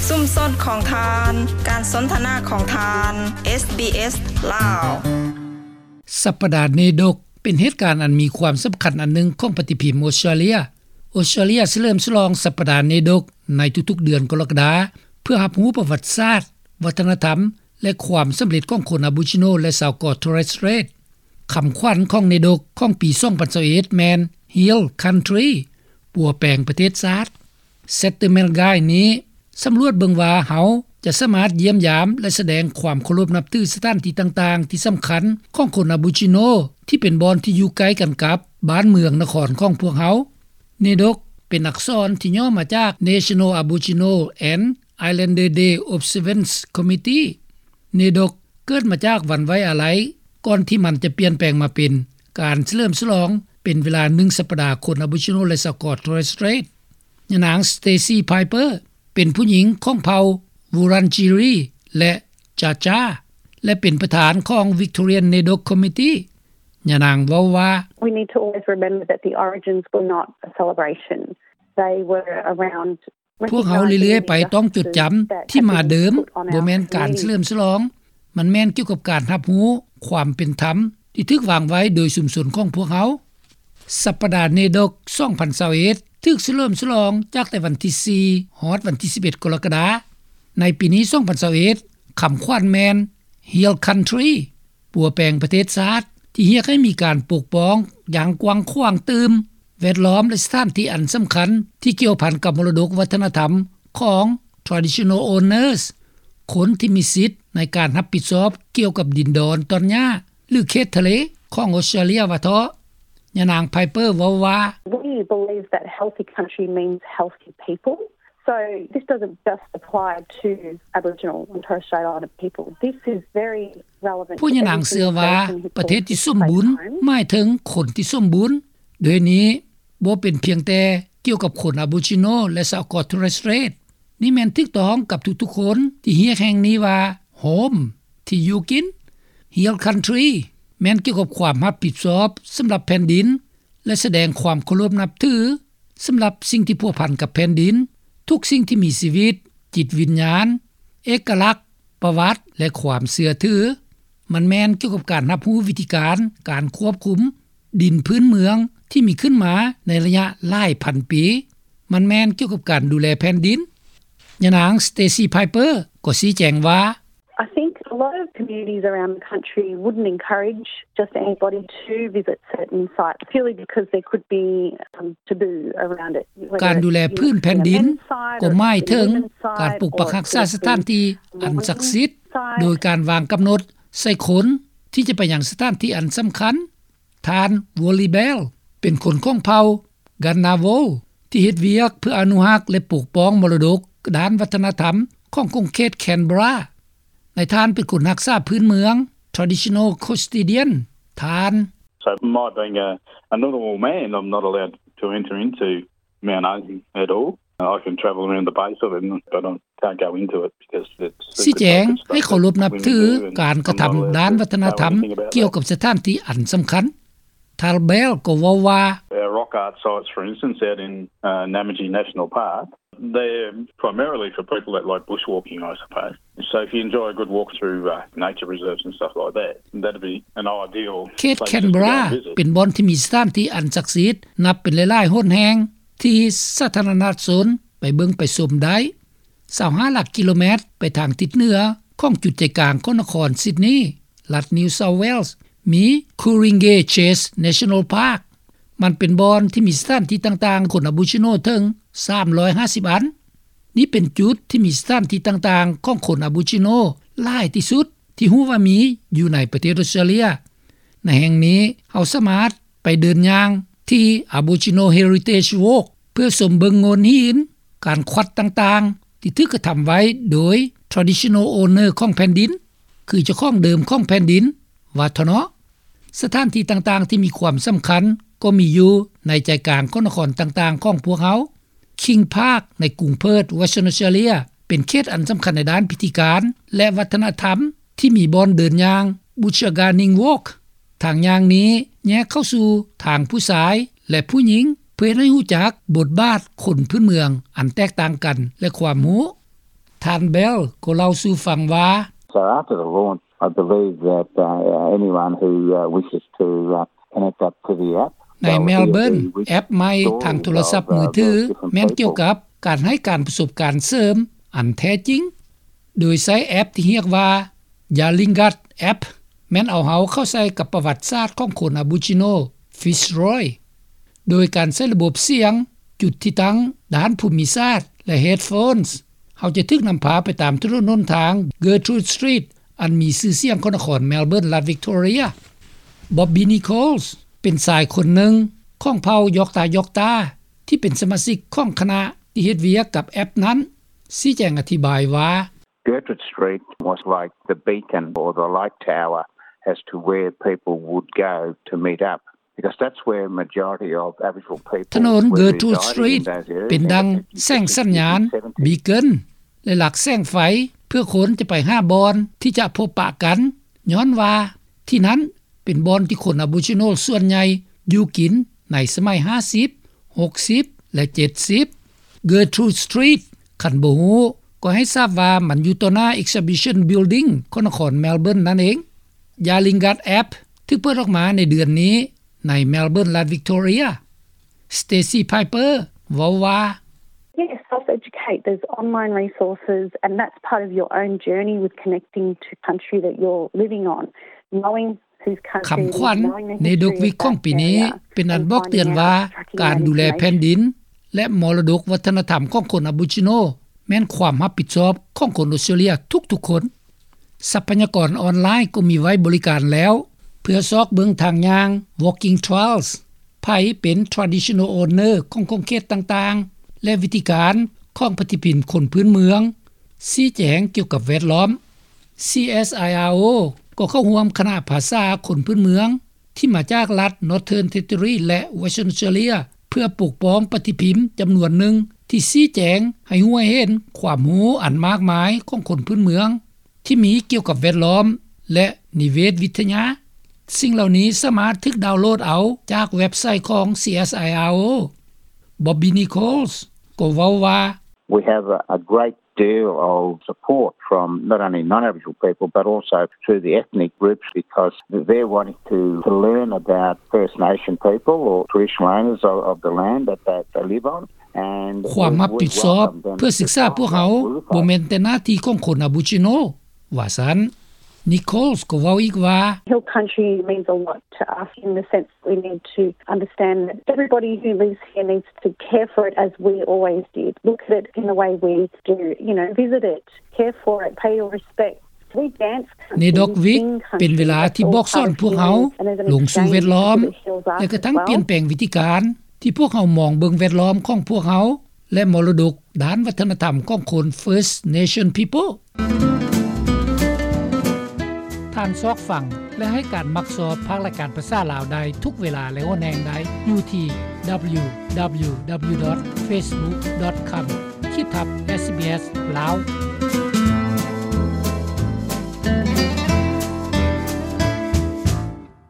ຊຸມຊົນຂອງທ່ານ, ການສົນທະນາຂອງທ່ານ, ເອສບີເອສ ລາວ. ສັບປະດາເນດົກ ເປັນເຫດການອັນມີຄວາມສຳຄັນອັນໜຶ່ງຂອງປະຕິພິມອົດສະຕຣາເລຍ. ອົດສະຕຣາເລຍສະເຫຼີມສະຫຼອງສັບປະດາເນດົກໃນທຸກໆເດືອນກໍລະກະດາ ເພື່ອຮັບຮູ້ປະຫວັດສາດ, ວັດທະນະທຳ ແລະ ຄວາມສຳເລັດຂອງຄົນອາໂບຣິຈິໂນ ແລະ ຊາວເກາະໂທເຣສເຕຣດ. ຄຳຂວັນຂອງເນດົກຂອງປີສອງພັນຊາວເອັດແມ່ນ Heal Country ປົວແປງປະເທດຊາດ. Saturnaidog ນີ້ສຳຫຼວດເບິ່ງວ່າເຮົາຈະສາມາດຢ້ຽມຢາມ ແລະ ສະແດງຄວາມເຄົາລົບນັບຖືສະຖານທີ່ຕ່າງໆທີ່ສຳຄັນຂອງຄົນອາໂບຣິຈິໂນ ທີ່ເປັນບ່ອນທີ່ຢູ່ໃກ້ກັນກັບບ້ານເມືອງນະຄອນຂອງພວກເຮົາ. ເນດົກ ເປັນອັກສອນທີ່ຫຍໍ້ມາຈາກ National Aboriginal and Islander Day Observance Committee. ເນດົກ ເກີດມາຈາກວັນໄວ້ອາໄລ ກ່ອນທີ່ມັນຈະປ່ຽນແປງມາເປັນການສະເຫຼີມສະຫຼອງເປັນເວລາໜຶ່ງສັບປະດາຄົນອາໂບຣິຈິໂນ ແລະ ຊາວເກາະໂທເຣສເຕຣດ. ຍານາງ Stacey Piper ເປັນຜູ້ຍິງຂອງເຜົ່າ Wurundjeri ແລະ Jagera ແລະ ເປັນປະທານຂອງ Victorian Nedok Committee. ຍານາງເວົ້າວ່າ We need to always remember that the origins were not a celebration. They were around ພວກເຮົາເລື້ອຍໆໄປຕ້ອງຈົດຈຳທີ່ມາເດີມບໍ່ແມ່ນການສະເຫຼີມສະຫຼອງ, ມັນແມ່ນກ່ຽວກັບການຮັບຮູ້ຄວາມເປັນທຳທີ່ຖືກວາງໄວ້ໂດຍຊຸມຊົນຂອງພວກເຮົາ. ສັບປະດາເນດົກສອງພັນຊາວເອັດ ຖືກສະເຫຼີມສະຫຼອງຈາກແຕ່ວັນທີສີ່ ຮອດວັນທີສິບເອັດ ກໍລະກະດາ. ໃນປີນີ້ ສອງພັນຊາວເອັດ ຄຳຂວັນແມ່ນ Heal Country ປົວແປງປະເທດຊາດ ທີ່ຮຽກໃຫ້ມີການປົກປ້ອງຢ່າງກວ້າງຂວາງຕື່ມ ແວດລ້ອມ ແລະ ສະຖານທີ່ອັນສຳຄັນທີ່ກ່ຽວພັນກັບມໍລະດົກວັດທະນະທຳຂອງ Traditional Owners ຄົນທີ່ມີສິດໃນການຮັບຜິດຊອບກ່ຽວກັບດິນດອນຕອນຫຍ້າ ຫຼື ເຂດທະເລຂອງອົດສະຕຣາເລຍວ່າເທາະ. ຍານາງ Piper ເວົ້າວ່າ We believe that healthy country means healthy people. So this doesn't just apply to Aboriginal and Torres Strait Islander people. This is very relevant to everything that Aboriginal people ພວກຍານາງເຊື່ອວ່າ ປະເທດທີ່ສົມບູນ ໝາຍເຖິງຄົນທີ່ສົມບູນ. ດ້ວຍນີ້ ບໍ່ເປັນພຽງແຕ່ກ່ຽວກັບຄົນອາໂບຣິຈິໂນ ແລະ ຊາວເກາະໂທເຣສເຕຣດ. ນີ້ແມ່ນຖືກຕ້ອງກັບທຸກໆຄົນທີ່ຮຽກແຫ່ງນີ້ວ່າ Home ທີ່ຢູ່ກິນ. Heal Country ແມ່ນກ່ຽວກັບຄວາມຮັບຜິດຊອບສຳລັບແຜ່ນດິນ ແລະ ສະແດງຄວາມເຄົາລົບນັບຖືສຳລັບສິ່ງທີ່ພົວພັນກັບແຜ່ນດິນ, ທຸກສິ່ງທີ່ມີຊີວິດ, ຈິດວິນຍານ, ເອກະລັກ, ປະຫວັດ ແລະ ຄວາມເຊື່ອຖື. ມັນແມ່ນກ່ຽວກັບການຮັບຮູ້ວິທີການ ການຄວບຄຸມດິນພື້ນເມືອງທີ່ມີຂຶ້ນມາໃນໄລຍະຫຼາຍພັນປີ. ມັນແມ່ນກ່ຽວກັບການດູແລແຜ່ນດິນ. ຍານາງ Stacey Piper ກໍຊີ້ແຈງວ່າ I think a lot of communities around the country wouldn't encourage just anybody to visit certain sites purely because there could be some taboo around it. ການດູແລພື້ນແຜ່ນດິນກໍໝາຍເຖິງການປົກປັກຮັກສາສະຖານທີ່ອັນສັກສິດ ໂດຍການວາງກຳນົດໃສ່ຄົນທີ່ຈະໄປຍັງສະຖານທີ່ອັນສຳຄັນ. ທ່ານ Wally Bell ເປັນຄົນຂອງເຜົ່າ Ngunnawal ທີ່ເຮັດວຽກເພື່ອອະນຸຮັກ ແລະ ປົກປ້ອງມໍລະດົກດ້ານວັດທະນະທຳຂອງຂົງເຂດ Canberra. ນາຍທ່ານເປັນຄົນຮັກສາພື້ນເມືອງ Traditional Custodian. ທ່ານ So my being a, a Ngunnawal man, I'm not allowed to enter into Mount Isa at all. I can travel around the base of it, but I can't go into it because it's ຊີ້ແຈງໃຫ້ເຄົາລົບນັບຖືການກະທຳດ້ານວັດທະນະທຳກ່ຽວກັບສະຖານທີ່ອັນສຳຄັນ. ທ່ານ Bell ກໍເວົ້າວ່າ Our rock art sites, for instance, out in, uh, Namadgi National Park, they're primarily for people that like bushwalking, I suppose. So if you enjoy a good walk through, uh, nature reserves and stuff like that, that'd be an ideal place just to go and visit. ເຂດ Canberra ເປັນບ່ອນທີ່ມີສະຖານທີ່ອັນສັກສິດນັບເປັນຫຼາຍໆຫົນແຫ່ງ ທີ່ສາທາລະນະຊົນໄປເບິ່ງໄປຊົມໄດ້. ຊາວຫ້າຫຼັກກິໂລແມັດໄປທາງທິດເໜືອຂອງຈຸດໃຈກາງຂອງນະຄອນຊິດນີ ລັດ New South Wales ມີ Ku-ring-gai Chase National Park. ມັນເປັນບ່ອນທີ່ມີສະຖານທີ່ຕ່າງໆຂອງຄົນອາໂບຣິຈິໂນເຖິງສາມຮ້ອຍຫ້າສິບອັນ. ນີ້ເປັນຈຸດທີ່ມີສະຖານທີ່ຕ່າງໆຂອງຄົນອາໂບຣິຈິໂນຫຼາຍທີ່ສຸດທີ່ຮູ້ວ່າມີຢູ່ໃນປະເທດອົດສະຕຣາເລຍ. ໃນແຫ່ງນີ້ເຮົາສາມາດໄປເດີນຍ່າງທີ່ Aboriginal Heritage Walk ເພື່ອຊົມເບິ່ງໂງ່ນຫີນ, ການຂວັດຕ່າງໆທີ່ຖືກກະທຳໄວ້ໂດຍ Traditional Owner ຂອງແຜ່ນດິນ, ຄືເຈົ້າຂອງເດີມຂອງແຜ່ນດິນ ວ່າເທາະເນາະ. ສະຖານທີ່ຕ່າງໆທີ່ມີຄວາມສຳຄັນກໍມີຢູ່ໃນໃຈກາງຂອງນະຄອນຕ່າງໆຂອງພວກເຮົາ. King Park ໃນກຸງເພີດ Western Australia ເປັນເຂດອັນສຳຄັນໃນດ້ານພິທີການ ແລະ ວັດທະນະທຳ ທີ່ມີບ່ອນເດີນຍ່າງ Buchaguaning Walk. ທາງຍ່າງນີ້ແຍກເຂົ້າສູ່ທາງຜູ້ຊາຍ ແລະ ຜູ້ຍິງ ເພື່ອເຮັດໃຫ້ຮູ້ຈັກບົດບາດຄົນພື້ນເມືອງອັນແຕກຕ່າງກັນ ແລະ ຄວາມຮູ້. ທ່ານ Bell ກໍເລົ່າສູ່ຟັງວ່າ So after the launch, I believe that, uh, anyone who, uh, wishes to, uh, connect up to the app, ໃນ Melbourne, ແອັບໃໝ່ທາງໂທລະສັບມືຖື ແມ່ນກ່ຽວກັບການໃຫ້ການປະສົບການເສີມອັນແທ້ຈິງ ໂດຍໃຊ້ແອັບທີ່ຮຽກວ່າ Yalingad App ແມ່ນເອົາເຮົາເຂົ້າໃສ່ກັບປະຫວັດສາດຂອງຄົນ Aboriginal Fitzroy ໂດຍການໃຊ້ລະບົບສຽງ, ຈຸດທີ່ຕັ້ງ, ດ້ານພູມິສາດ ແລະ headphones ເຮົາຈະຖືກນຳພາໄປຕາມຖະໜົນຫົນທາງ Gertrude Street ອັນມີຊື່ສຽງຂອງນະຄອນ Melbourne ລັດ Victoria. Bobby Nichols ເປັນຊາຍຄົນໜຶ່ງຂອງເຜົ່າ Yorta Yorta ທີ່ເປັນສະມາຊິກຂອງຄະນະທີ່ເຮັດວຽກກັບແອັບນັ້ນ ຊີ້ແຈງອະທິບາຍວ່າ Gertrude Street was like the beacon or the light tower as to where people would go to meet up, because that's where majority of Aboriginal people ຖະໜົນ Gertrude Street ເປັນດັ່ງແສງສັນຍານ beacon ແລະ ຫຼັກແສງໄຟ ເພື່ອຄົນຈະໄປຫາບ່ອນທີ່ຈະພົບປະກັນ ຍ້ອນວ່າທີ່ນັ້ນເປັນບ່ອນທີ່ຄົນ Aboriginal ສ່ວນໃຫຍ່ຢູ່ກິນໃນສະໄໝ 50, 60 ແລະ 70. Gertrude Street ຄັນບໍ່ຮູ້ກໍໃຫ້ຊາບວ່າມັນຢູ່ຕໍ່ໜ້າ Exhibition Building ຂອງນະຄອນ Melbourne ນັ້ນເອງ. Yalingad App ຖືກເປີດອອກມາໃນເດືອນນີ້ໃນ Melbourne ລັດ Victoria. Stacey Piper ເວົ້າວ່າ Yes, self-educate. There's online resources, and that's part of your own journey with connecting to country that you're living on. Knowing ຄຳຂວັນ Naydokwik ຂອງປີນີ້ ເປັນອັນບອກເຕືອນວ່າ ການດູແລແຜ່ນດິນ ແລະ ມໍລະດົກວັດທະນະທຳຂອງຄົນ Aboriginal ແມ່ນຄວາມຮັບຜິດຊອບຂອງຄົນອອສເຕຣເລັຽທຸກໆຄົນ. ຊັບພະຍາກອນອອນລາຍກໍມີໄວ້ບໍລິການແລ້ວ ເພື່ອຊອກເບິ່ງທາງຍ່າງ walking trails ໃຜເປັນ traditional owner ຂອງຂົງເຂດຕ່າງໆ ແລະ ວິທີການຂອງປະຕິທິນຄົນພື້ນເມືອງ ຊີ້ແຈງກ່ຽວກັບແວດລ້ອມ. CSIRO ກໍເຂົ້າຮ່ວມຄະນະພາສາຄົນພື້ນເມືອງ ທີ່ມາຈາກລັດ Northern Territory ແລະ Western Australia ເພື່ອປົກປ້ອງປະຕິພິມຈຳນວນໜຶ່ງ ທີ່ຊີ້ແຈງໃຫ້ຮູ້ໃຫ້ເຫັນຄວາມຮູ້ອັນມາກມາຍຂອງຄົນພື້ນເມືອງ ທີ່ມີກ່ຽວກັບແວດລ້ອມ ແລະ ນິເວດວິທະຍາ. ສິ່ງເຫຼົ່ານີ້ສາມາດຖືກດາວໂຫຼດເອົາຈາກເວັບໄຊຂອງ CSIRO. Bobby Nichols ກໍເວົ້າວ່າ We have a, a great deal of support from not only non-Aboriginal people but also through the ethnic groups, because they're wanting to, to learn about First Nation people or traditional owners of, of the land that they, they live on. ຄວາມຮັບຜິດຊອບເພື່ອສຶກສາພວກເຮົາ ບໍ່ແມ່ນແຕ່ໜ້າທີ່ຂອງຄົນ Aboriginal ວ່າຊັ້ນ. Nichols ກໍເວົ້າອີກວ່າ Hill Country means a lot to us in the sense that we need to understand that everybody who lives here needs to care for it as we always did. Look at it in the way we do, you know, visit it, care for it, pay your respect. Naydokwik ເປັນເວລາທີ່ບອກສອນພວກເຮົາລົງສູ່ແວດລ້ອມ ແລະ ກະທັງປ່ຽນແປງວິທີການທີ່ພວກເຮົາມອງເບິ່ງແວດລ້ອມຂອງພວກເຮົາ ແລະ ມໍລະດົກດ້ານວັດທະນະທຳຂອງຄົນ First Nation People. ທ່ານຊອກຟັງ ແລະ ໃຫ້ການມັກຊອບພາກລາຍການພາສາລາວໄດ້ທຸກເວລາ ແລະ ຫົວແຮງໃດຢູ່ທີ່ www.facebook.com/sbs lao.